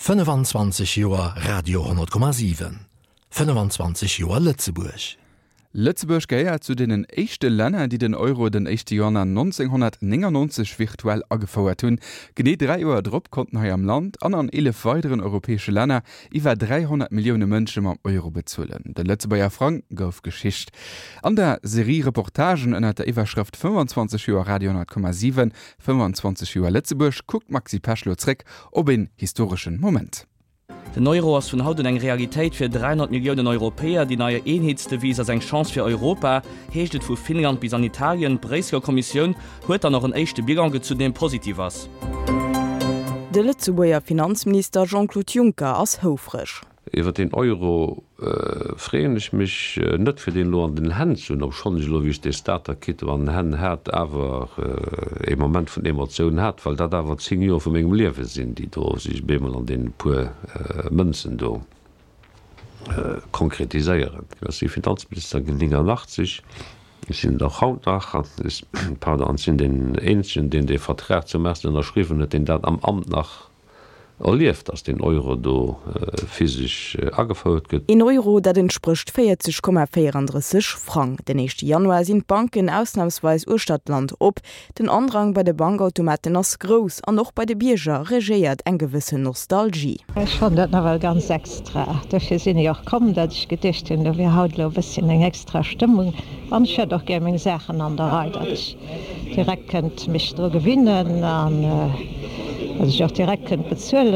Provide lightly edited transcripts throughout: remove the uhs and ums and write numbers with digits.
25 Joer Radio 10,7, 25 Joer Lëtzebuerg. Lëtzebuerg gehéiert zu deenen éischte Länner, déi den Euro den éischte Januar 1999 virtuell agefouert hunn. Genee 3 Joer drop konnten hei am Land an an 11 weideren europäesche Länner iwwer 300 Millioune Mënsche mam Euro bezuelen. De Lëtzebuerger Frang gouf Geschicht. An der Serie Reportagen ënnert der Iwwerschrëft 25 Joer Radio 10,7, 25 Joer Lëtzebuerg kuckt d'Maxi Pesch lo zréck op een historeschen Moment. Den Euro ass vun haut un eng Realitéit fir 300 Milliounen Europäer. Déi nei Eenheetsdevise ass eng Chance fir Europa, heescht et vu Finnland bis an Italien. D'Bréisseler Kommissioun huet dann och en éischte Bilan gezunn, dee positiv ass. De Lëtzebuerger Finanzminister Jean-Claude Juncker ass houfreg. Iwwer deen Euro freeën ech mech net, fir deen elo an den Hänn ze hunn, obschonn ech elo, wéi ech dee Starter-Kit an den Hänn hat, awer ee Moment vun Emotioun hat, well dat awer 10 Joer vu mengem Liewe sinn, déi do sech op eemol an deene puer Mënzen do konkretiséieren. Ech si Finanzminister ginn 89, ech sinn et och haut nach, pardon, an ech sinn deen eenzegen, deen dee Vertrag zum ersten ënnerschriwwen huet, deen dat am Amt nach erlieft, dass deen Euro do physesch agefouert gëtt. Een Euro, dat entsprécht 40,34 Frang. Den éischte Januar sinn d'Banken ausnamsweis uechter d'Land op. Den Andrang bei de Bankautomaten ass grouss an och bei de Bierger regéiert eng gewëssen Nostalgie. Ech fannen dat nawell ganz extra. Dofir sinn ech och komm, dat ech geduecht hunn, do wier haut elo e bësschen eng extra Stëmmung. An ech hätt och gär meng Saachen an der Rei, dat ech direkt kënnt mech dru gewinnen an dat ech och direkt kënnt bezuelen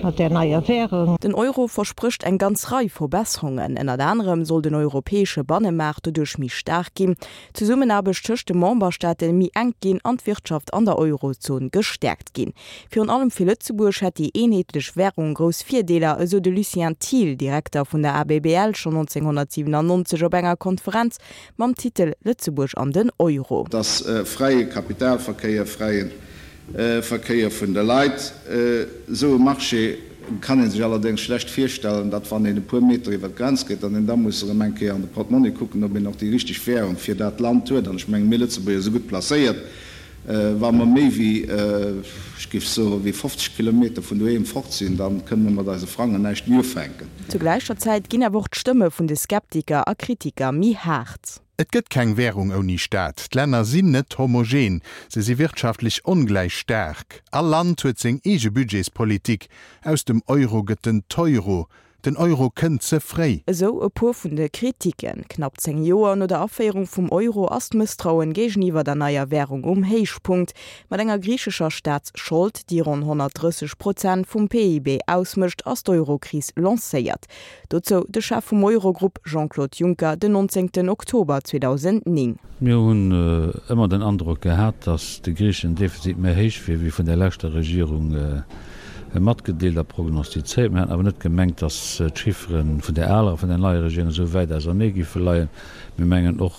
mat där neier Währung. Den Euro versprécht eng ganz Rei Verbesserungen. Ënnert anerem soll den europäesche Bannemaart doduerch méi staark ginn, d'Zesummenaarbecht tëscht de Memberstaate méi enk ginn an d'Wirtschaft an der Eurozon gestäerkt ginn. Virun allem fir Lëtzebuerg hätt déi eenheetlech Wärung grouss Virdeeler, esou de Lucien Thiel, Direkter vun der ABBL, schonn 1997 op enger Konferenz Mam Titel Lëtzebuerg an den Euro. Dass fräie Kapitalverkéier, fräie Verkéier vun de Leit, esou e Marché kann ee sech allerdéngs schlecht virstellen, datt wann een e puer Meter iwwer d'Grenz geet, datt een da muss erëm eng Kéier an de Portmonni kucken, ob een och déi richteg Währung fir dat Land huet. An ech mengen, mir Lëtzebuerger si gutt placéiert, wa mer méi wéi, ech géif soen, wéi 50 Kilometer vun doheem fort sinn, da kënne mer mat eise Frangen näischt méi ufänken. Zu gläicher Zäit ginn awer och d'Stëmme vun de Skeptiker a Kritiker méi haart. Et gëtt keng Währung ouni Staat. D'Länner sinn net homogen, se si wirtschaftlech ongläich staark. All Land huet seng eege Budgetspolitik. Aus dem Euro gëtt den Teuro. Den Euro kënnt ze fréi. Esou e puer vun de Kritiken. Knapp 10 Joer no der Aféierung vum Euro ass d'Mësstrauen géigeniwwer der neier Wärung um Héichpunkt. Mat enger griichescher Staatsschold, déi ronn 130 Prozent vum PIB ausmécht, ass d'Eurokris lancéiert. Dozou de Chef vum Eurogrupp Jean-Claude Juncker den 19 Oktober 2009. Mir hunn ëmmer den Androck gehat, datt de griicheschen Defizit méi héich wier wéi vun der leschter Regierung matgedeelt a prognostizéiert. Mir haten awer net gemengt, datt d'Chiffere vun der aler a vun der neier Regierung esou wäit ausernee géife leien. Mir mengen och,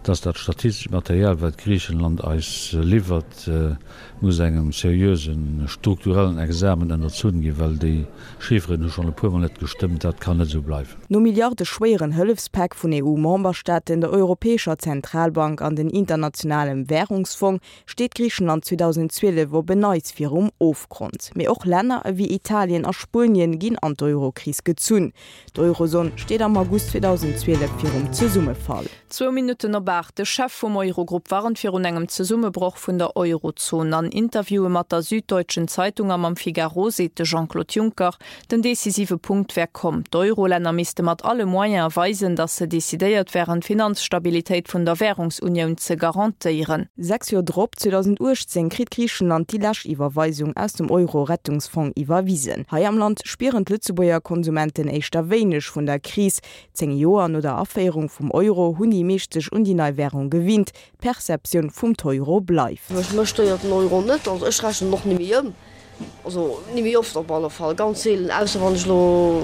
datt dat statistescht Material, wat Griichenland eis liwwert, muss engem seriöse strukturellen Examen ënnerzunn ginn, well déi Chifferen hu schonn e puermol net gestëmmt. Dat kann net esou bleiwen. No milliardeschwéieren Hëllefspäck vun EU-Memberstaaten, der Europäescher Zentralbank an den Internationalem Wärungsfong steet Griichenland 2012 op en Neits virum Ofgrond. Mee och Länner ewéi Italien a Spuenien ginn an d'Eurokris gezunn. D'Eurozon steet am August 2012 virum Zesummefall. Zwou Minutten op 8, De Chef vum Eurogrupp warnt virun engem Zesummebroch vun der Eurozon. An Interviewe mat der Süddeutschen Zeitung a mam Figaro seet de Jean-Claude Juncker, den decisive Punkt wär komm. D'Eurolänner misste mat alle Moyene weisen, datt se decidéiert wären, d'Finanzstabilitéit vun der Wärungsunioun ze garantéieren. Sechs Joer drop, 2018, kritt Griichenland déi lescht Iwwerweisung aus dem Euro-Rettungsfong iwwerwisen. Hei am Land spieren d'Lëtzebuerger Konsumenten éischter wéineg vun der Kris. 10 Joer no der Aféierung vum Euro hunn déi meescht sech un déi nei Wärung gewinnt. D'Perceptioun vum Teuro bleift. Mech stéiert den Euro net, also ech rechnen och ni méi ëm, also ni méi oft op alle Fall, ganz seelen, ausser wann ech elo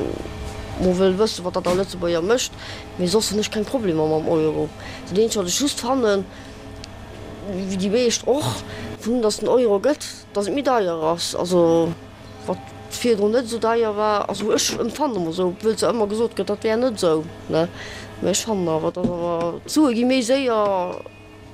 mol wëll wëssen, wat dat a Lëtzebuerger mécht, mee soss hunn ech keng Problemer mam Euro. Dat eenzegt wat ech just fannen, wéi déi meescht och, vun datt den Euro gëtt, datt et méi deier ass, also. Wat virdrun net esou deier war, also ech empfannen emol esou, obwuel zwar ëmmer gesot gëtt, dat wär net esou, ne, mä ech fannen awer, datt awer d'Sue gi méi séier.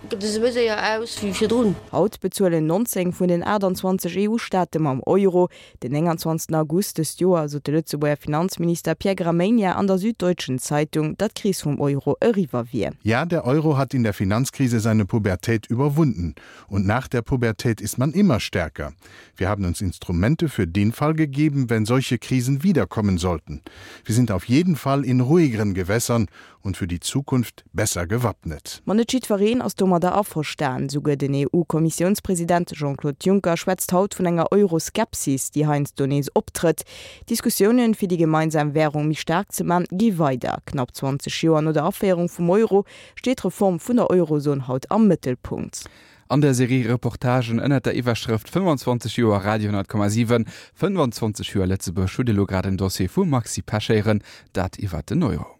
gëtt e se méi séier aus wéi virdrun. Haut bezuelen 19 vun den 28 EU-Staate mam Euro. Den 29 August dëst Joer sot de Lëtzebuerger Finanzminister Pierre Gramegna an der Süddeutschen Zeitung, datt d'Kris vum Euro eriwwer wier. Ja, der Euro hat in der Finanzkrise seine Pubertät überwunden. Und nach der Pubertät ist man immer stärker. Wir haben uns Instrumente für den Fall gegeben, wenn solche Krisen wiederkommen sollten. Wir sind auf jeden Fall in ruhigeren Gewässern und für die Zukunft besser gewappnet. Ma net jiddwereen ass domadder averstan. Souguer den EU-Kommissiounspresident Jean-Claude Juncker schwätzt haut vun enger Euroskepsis, déi heiansdo nees optrëtt. D'Diskussiounen, fir déi gemeinsam Wärung méi staark ze man, gi weider. Knapp 20 Joer no der Aféierung vum Euro steet d'Reform vun der Eurozon haut am Mëttelpunkt. An der Serie Reportagen ënnert der Iwwerschrëft 25 Joer Radio 10,7, 25 Joer Lëtzebuerg hutt elo grad en Dossier vum Maxi Pesch héieren, dat iwwert den Euro.